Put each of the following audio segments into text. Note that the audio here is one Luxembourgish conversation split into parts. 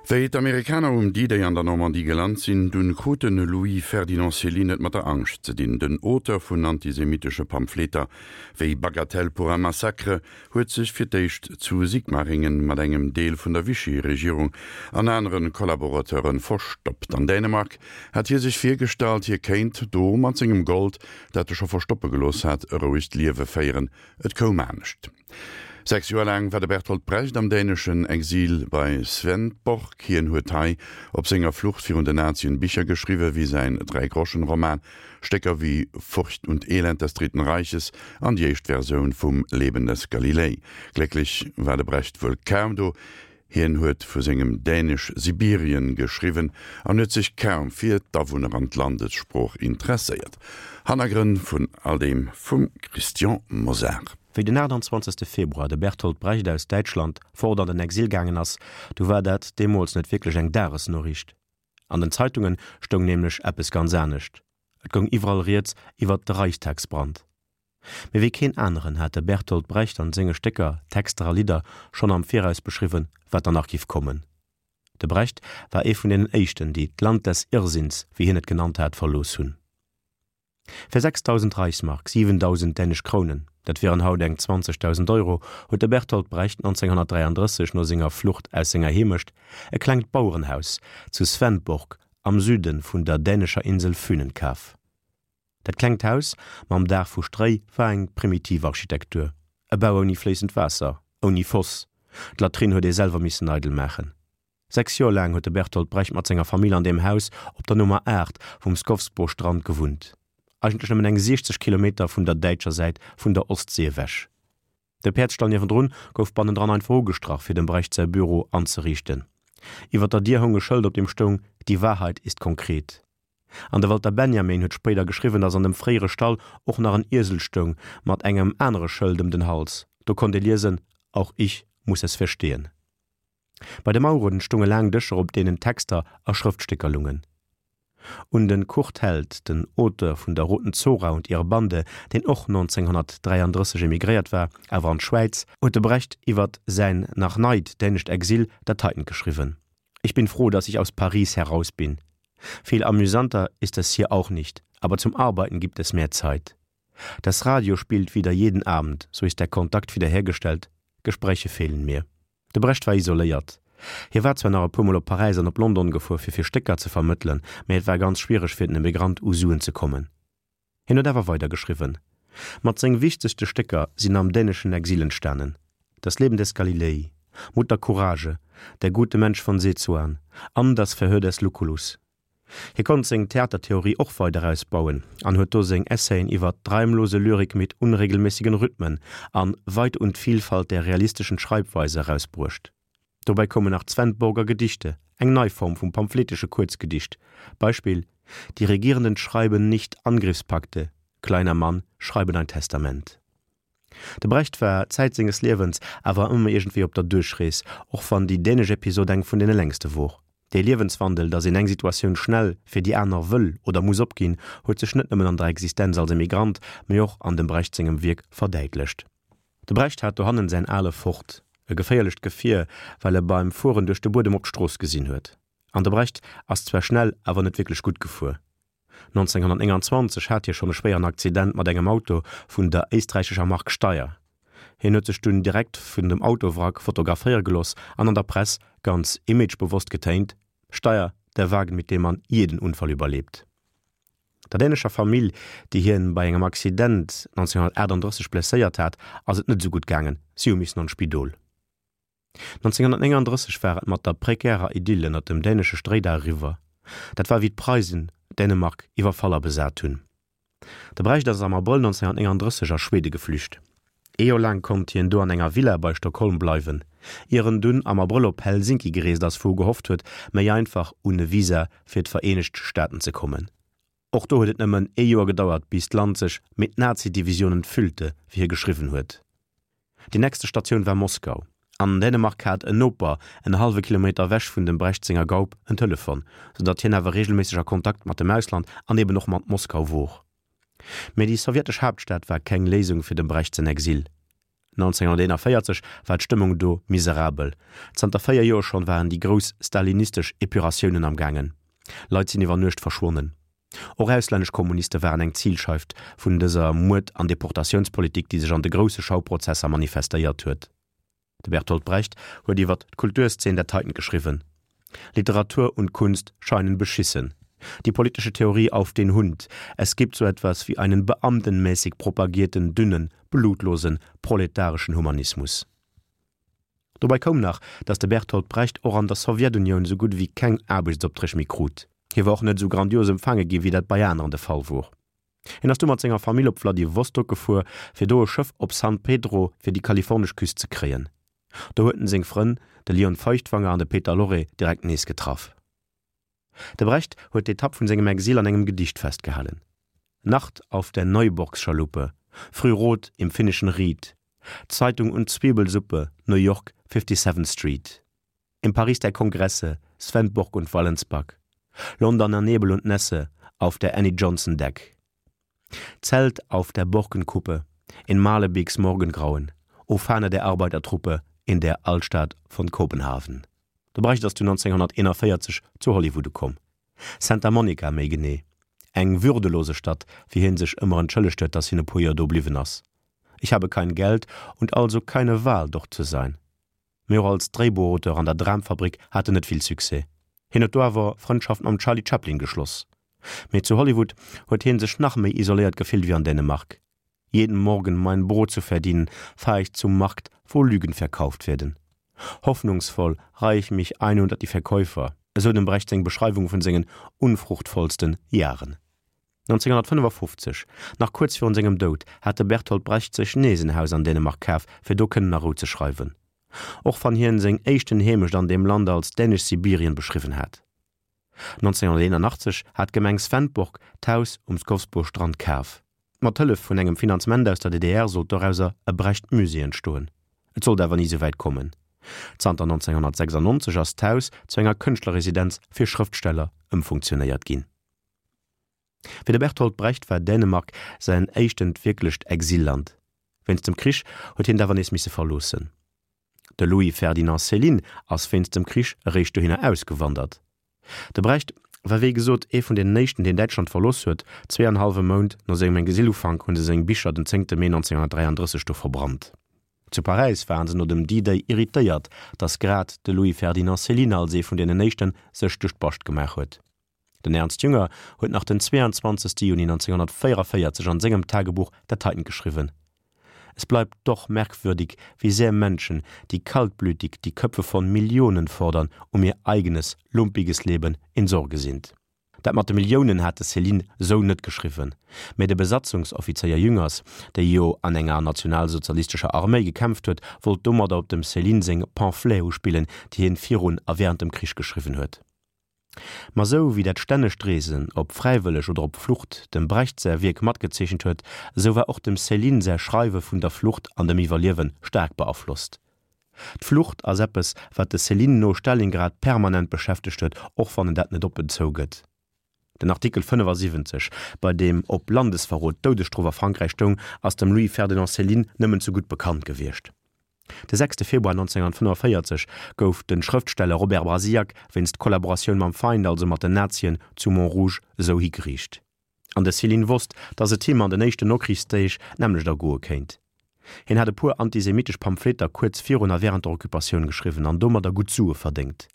Wéi d'Amerikaner um D-Day an der Normandie gelant sinn, dunn krut de Louis Ferdinand Céline et mat der Angscht ze dinn. Den Auteur vun antisemitesche Pamphleter wéi Bagatelle pour un massacre huet sech fir d'éischt zu Sigmaringen mat engem Deel vun der Vichy-Regierung an anere Kollaborateure verstoppt. An Dänemark hat hie sech virgestallt, hie kéint do mat sengem Gold, dat e scho verstoppe gelooss hat, e rouegt Liewe féieren. Et koum anescht. 6 Joer laang war de Bertolt Brecht am däneschen Exil bei Svendborg. Hien huet hei op senger Flucht virun den Nazien Bicher geschriwwen, wéi säin Dräigroschen-Roman, Stécker wéi Furcht und Elend des Dritten Reiches an déi éischt Versioun vum Leben des Galilei. Glécklech war de Brecht wuel kaum do. Hien huet vu sengem Dänesch-Sibirien geschriwwen an huet sech kaum fir d'Awunner an d'Landessprooch interesséiert. Hannergrënn vun all deem vum Christian Mosar. Wéi den 28. Februar de Bertolt Brecht aus Däitschland fort an den Exil gaangen ass, du war dat deemools net wierklech eng Dagesnoriicht. An den Zeitunge stoung nämlech eppes ganz anescht, Et goung iwwerall rieds iwwert de Reichstagsbrand. Mee wéi keen aneren hat de Bertolt Brecht an senge Stécker, Texter a Lidder schonn am Viraus beschriwwen, wat dann nach giff kommen. De Brecht war ee vun deenen éischten, déi d'Land des Irrsinns, wéi hien et genannt hat, verlooss hunn. Fir 6.000 Reichsmark, 7.000 dänesch Krounen, dat wieren haut eng 20.000 Euro, huet de Bertolt Brecht 1933 no senger Flucht aus senger Heemecht e klengt Bauerenhaus zu Svendborg am Süde vun der dänescher Insel Fünen kaf. Dat klengt Haus mam Daach vu Stréi war eng primitiv Architektur, e Bau ouni fléissend Waasser, ouni Foss, d'Latrinn huet ee selwer missen eidel maachen. 6 Joer laang huet de Bertolt Brecht mat senger Famill an deem Haus op der Nummer 8 vum Skovsbo-Strand gewunnt, eigentlech nëmmen eng 60 Kilometer vun der däitscher Säit vun der Ostsee ewech. De Päerdsstall niewendrun gouf bannendran einfach ugestrach, fir dem Brecht säi Büro anzeriichten. Iwwer der Dier houng e Schëld, op deem stoung, Die Wahrheit ist konkret. An de Walter Benjamin huet spéider geschriwwen, datt an dem fréiere Stall och nach en Iesel stoung mat engem anere Schëld ëm den Hals. Do konnt ee liesen, Auch ich muss es verstehen. Bei de Maueren stounge laang Dëscher, op deenen Texter a Schrëftstécker lungen. Un de Kurt Held, den Auteur vun der Roten Zora und ihre Bande, deen och 1933 emigréiert war, awer an d'Schwäiz, huet de Brecht iwwer säin nach neit dänescht Exil dat heitent geschriwwen, Ich bin froh, dass ich aus Paris heraus bin. Viel amüsanter ist es hier auch nicht, aber zum Arbeiten gibt es mehr Zeit. Das Radio spielt wieder jeden Abend, so ist der Kontakt wiederhergestellt, Gespräche fehlen mir. De Brecht war isoléiert. Hie war zwar nach e puermol op Paräis an op London gefuer fir fir Stécker ze vermëttelen, mä et war ganz schwiereg fir den Emigrant u Suen ze kommen. Hien huet awer weider geschriwwen. Mat seng wichtegste Stécker sinn am däneschen Exil entstanen, Das Leben des Galilei, Mutter Courage, Der gute Mensch von Sezuan an Das Verhör des Lucullus. Hie konnt seng Theatertheorie och weider ausbauen an huet do seng Essaien iwwer d'Reimlose Lyrik mit unregelmäßigen Rhythmen an Weite und Vielfalt der realistischen Schreibweise erausbruecht. Dobäi koumen nach d'Svendborger Gedichte, eng nei Form vum pamphletesche Kuerzgedicht, Beispill, Die Regierenden schreiben nicht Angriffspakte, kleiner Mann, schreiben ein Testament. De Brecht war Zäit senges Liewens awer ëmmer iergendwéi op der Duerchrees, och wann déi dänesch Episod eng vun deene längste wor. Dee Liewenswandel, datt een eng Situatioun schnell fir déi aner wëll oder muss opginn, huet sech net nëmmen an der Existenz als Emigrant, mee och an dem Brecht sengem Wierk verdäitlecht. De Brecht hat dohannen säin ale Ford, e geféierlecht Gefier, well e beim Fueren duerch de Buedem op d'Strooss gesinn huet. An de Brecht ass zwar schnell, awer net wierklech gutt gefuer. 1929 hat hie schonn e schwéieren Accident mat engem Auto vun der éisträichescher Mark Steyr. Hien huet sech dunn direkt vun dem Autowrack fotograféiere geloss an an der Press ganz imagebewosst getéint, Steyr, der Wagen, mit dem man jeden Unfall überlebt. Der dänescher Famill, déi hien bei engem Accident 1938 blesséiert hat, ass et net esou gutt gaangen, si hu missen an d'Spidol. 1939 war et mat der prekärer Idyll ënner dem dänesche Stréidaach eriwwer. Dat war wéi d'Preisen Dänemark iwwerfall a besat hunn. De Brecht ass am Abrëll 1939 a Schwede geflücht. Ee Joer laang konnt hien do an enger Villa bei Stockholm bleiwen, ier en dunn am Abrëll op Helsinki gereest ass, wou e gehofft huet, méi einfach un e Visa fir d'Vereenegt Staaten ze kommen. Och do huet et nëmmen ee Joer gedauert, bis d'Land sech mit Nazi-Divisionen füllte, wéi hie geschriwwen huet. Déi nächste Statioun war Moskau. An Dänemark hat en Noper, en hallwe Kilometer ewech vun dem Brecht senger Gaup, en Telefon, sou datt hien awer reegelméisseg a Kontakt mat dem Ausland an eben och mat Moskau wor. Mee déi sowjetesch Haaptstad war keng Léisung fir dem Brecht säin Exil. 1941 war d'Stëmmung do miserabel. Zanter 4 Joer schonn waren déi grouss stalinistesch Epuratiounen am gaangen. Leit sinn iwwer Nuecht verschwonnen. Och auslännesch Kommuniste waren eng Zilscheift vun dëser Muerd an Deportatiounspolitik, déi sech an de grousse Schauprozesser manifestéiert huet. De Bertolt Brecht huet iwwer d'Kulturszeen dat heiten geschriwwen, Literatur und Kunst scheinen beschissen. Die politische Theorie auf den Hund. Es gibt so etwas wie einen beamtenmäßig propagierten, dünnen, blutlosen, proletarischen Humanismus. Dobäi koum nach, datt de Bertolt Brecht och an der Sowjetunioun sou gutt ewéi keng Aarbechtsopträg méi krut. Hie war och net esou grandios empfaange gi wéi dat bei aneren de Fall wor. Hien ass du mat senger Famill op Wladiwostok gefuer, fir do e Schëff op San Pedro fir déi kalifornesch Küst ze kréien. Do huet en seng Frënn, de Lion Feuchtwanger an de Peter Lorre, direkt nees getraff. De Brecht huet d'Etapp vun sengem Exil an engem Gedicht festgehalen, Nacht auf der Neuburgschaluppe, Frührot im finnischen Ried, Zeitung und Zwiebelsuppe, New York, Fifty-Seventh Street. Im Paris der Kongresse, Svendborg und Wallensback, Londoner Nebel und Nässe, auf der Annie Johnson Deck. Zelt auf der Borkenkuppe, in Malebeeks Morgengrauen, O Fahne der Arbeitertruppe, in der Altstadt von Kopenhaven. De Brecht ass du 1941 zu Hollywood ukomm. Santa Monica méi genee. Eng würdelose Stadt, fir hien sech ëmmer entschëllegt huet, dass hien e puer Joer do bliwwen ass. Ich habe kein Geld und also keine Wahl, dort zu sein. Mee och als Dréibuchauteur an der Dramfabrik hat en net vill Succès. Hien huet do awer Frëndschaft mam Charlie Chaplin geschloss. Mee zu Hollywood huet hien sech nach méi isoléiert gefillt ewéi an Dänemark. Jeden Morgen mein Brot zu verdienen, fahr ich zum Markt, wo Lügen verkauft werden. Hoffnungsvoll reih ich mich ein unter die Verkäufer, esou dem Brecht seng Beschreiwung vun sengen unfruchtvollsten Jaren. 1955, nach kuerz virun sengem Doud, hat de Bertolt Brecht sech nees en Haus an Dänemark kaf, fir do kënnen a Rou ze schreiwen. Och wann hien seng éischten Heemecht an deem Land als dänesch Sibirien beschriwwen hat. 1981 hat d'Gemeng Svendborg d'Haus um Skovsborg-Strand kaf. Mat Hëllef vun engem Finanzement aus der DDR sollt dorauser e Brecht-Musée entstoen. Et sollt awer ni souwäit kommen. Zanter 1996 ass d'Haus zu enger Kënschtlerresidenz fir Schrëftsteller ëmfunktionéiert ginn. Fir de Bertolt Brecht war Dänemark säin éischtent wierklecht Exilland. Wéinst dem Krich huet hien et awer nees misse verloossen. De Louis-Ferdinand Céline ass wéinst dem Krich eréischt dohinner ausgewandert. De Brecht war wéi gesot ee vun deenen éischten, deen Däitschland verlooss huet. Zwee an hallwe Mount no sengem Exilufank hu se seng Bicher den zéngte Mee 1933 do verbrannt. Zu Paräis waren se no dem D-Day irritéiert, datt grad de Louis-Ferdinand Céline als ee vun deenen éischten sech duerch d'Bascht gemaach huet. Den Ernst Jünger huet nach den 22. Juni 1944 an sengem Tagebuch dat heiten geschriwwen, Es bleibt doch merkwürdig, wie sehr Menschen, die kaltblütig die Köpfe von Millionen fordern, um ihr eigenes, lumpiges Leben in Sorge sind. Dat mat de Milliounen hat de Céline sou net geschriwwen, mä de Besatzungsoffizéier Jüngers, dee jo an enger nationalsozialistescher Arméi gekämpft huet, wollt domadder op dem Céline seng Pamphlete uspillen, déi hien virun a während dem Krich geschriwwen huet. Ma sou wéi dat stännegt Reesen, ob fräiwëlleg oder op Flucht, dem Brecht säi Wierk matgezeechent huet, esou war och dem Céline säi Schreiwe vun der Flucht an dem Iwwerliewe staark beaflosst. D'Flucht ass eppes, wat de Céline no Stalingrad permanent beschäftegt huet, och wann en dat net oppen zougëtt. Den Artikel 75, bei deem op Landesverrot d'Doudesstrof a Frankräich stoung, ass dem Louis-Ferdinand Céline nëmmen ze gutt bekannt gewiescht. De sechste Februar 1945 gouf de Schrëftsteller Robert Brasillach wéinst Kollaboratioun mam Feind, also mat den Nazien, zu Montrouge esou higeriicht. An de Céline wosst, datt et him an den éischten Nokrichsdeeg d'nämmlecht ergoe kéint. Hien hat e puer antisemitesch Pamphleter kuerz virun a wärend der Occupatioun geschriwwen an domadder gutt Sue verdéngt.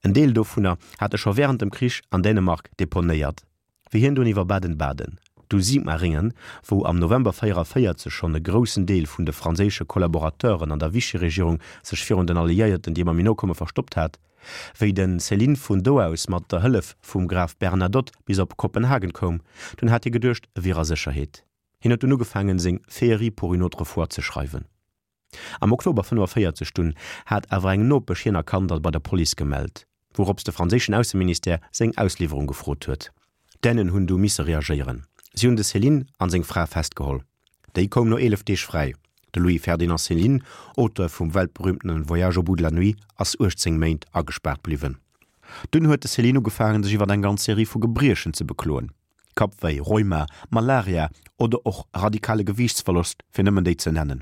En Deel dovunner hat e scho wärend dem Krich an Dänemark deponéiert. Wéi hien dunn iwwer Baden-Baden, du Sigmaringen, wou am November 44 schonn e groussen Deel vun de franséische Kollaborateuren an der Vichy-Regierung sech virun den Alliéierten, déi ëmmer méi no koume, verstoppt hat, wéi de Céline vun do aus mat der Hëllef vum Graf Bernadotte bis op Kopenhagen koum, dunn hat hie geduecht, e wier a Sécherheet. Hien huet dunn ugefaangen, seng Féerie pour une autre fois ze schreiwen. Am Oktober 45 dunn hat awer eng Nopesch hien erkannt a bei der Police gemellt, wourops de franséischen Ausseministère seng Ausliwwerung gefrot huet. D'Dänen hunn du misse reagéieren, si hunn de Céline an seng Fra festgeholl. Déi koum no 11 Deeg fräi. De Louis-Ferdinand Céline, Auteur vum weltberühmtene Voyage au bout de la nuit, ass 18 Méint agespaart bliwwen. Dunn huet de Céline ugefaangen, sech iwwer eng ganz Serie vu Gebriechen ze bekloen, Kappwéi, Rheuma, Malaria oder och radikale Gewiichtsverlost, fir nëmmen déi ze nennen.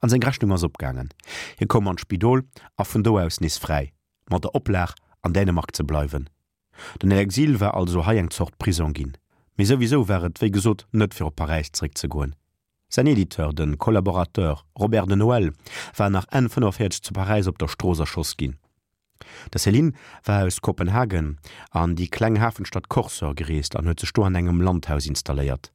An seng Rechnung ass opgaangen. Hie koum an d'Spidol a vun do aus nees fräi, mat der Oplag an Dänemark ze bleiwen. Den Exil war also hei eng Zort Prisong ginn. Mee souwisou war et wéi gesot net fir op Paräis zeréckzegoen. Säin Editeur, de Collaborateur Robert de Noël, war nach Enn 45 zu Paräis op der Strooss erschoss ginn. De Céline war aus Kopenhagen an déi kleng Hafenstadt Korsør gereest an huet sech do an engem Landhaus installéiert.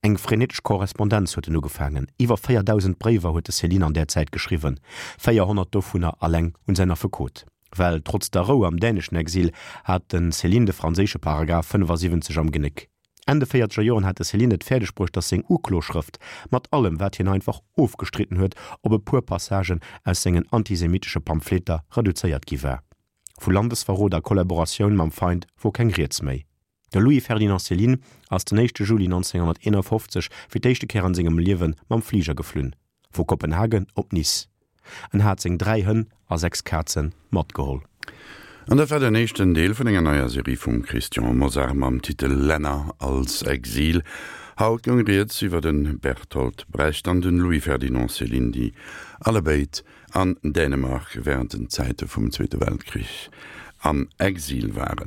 Eng frenetesch Korrespondenz huet en ugefaangen, iwwer 4.000 Bréiwer huet de Céline an där Zäit geschriwwen, 400 dovunner alleng un säin Affekot. Well trotz der Rou am däneschen Exil hat de Céline de franséische Paragraph 75 am Genéck. Enn de véierzeger Joren hat de Céline et fäerdeg bruecht, datt seng Ukloschrëft, mat allem wat hien einfach ofgestridden huet, op e puer Passagen aus sengen antisemitesche Pamphleter reduzéiert gi war. Vu Landesverrot a Kollaboratioun mam Feind wor keng Rieds méi. De Louis-Ferdinand Céline ass den éischte Juli 1951 fir d'éischte Kéier an sengem Liewe mam Fliger geflunn, vu Kopenhagen op Nice. En hat seng 3 Hënn a 6 Kaze matgeholl. An dat war den éischten Deel vun enger neier Serie vum Christian Mosar mam Titel Länner als Exil. Haut goung rieds iwwer de Bertolt Brecht an den Louis-Ferdinand Céline, déi allebéid an Dänemark wärend den Zäite vum Zweete Weltkrich am Exil waren.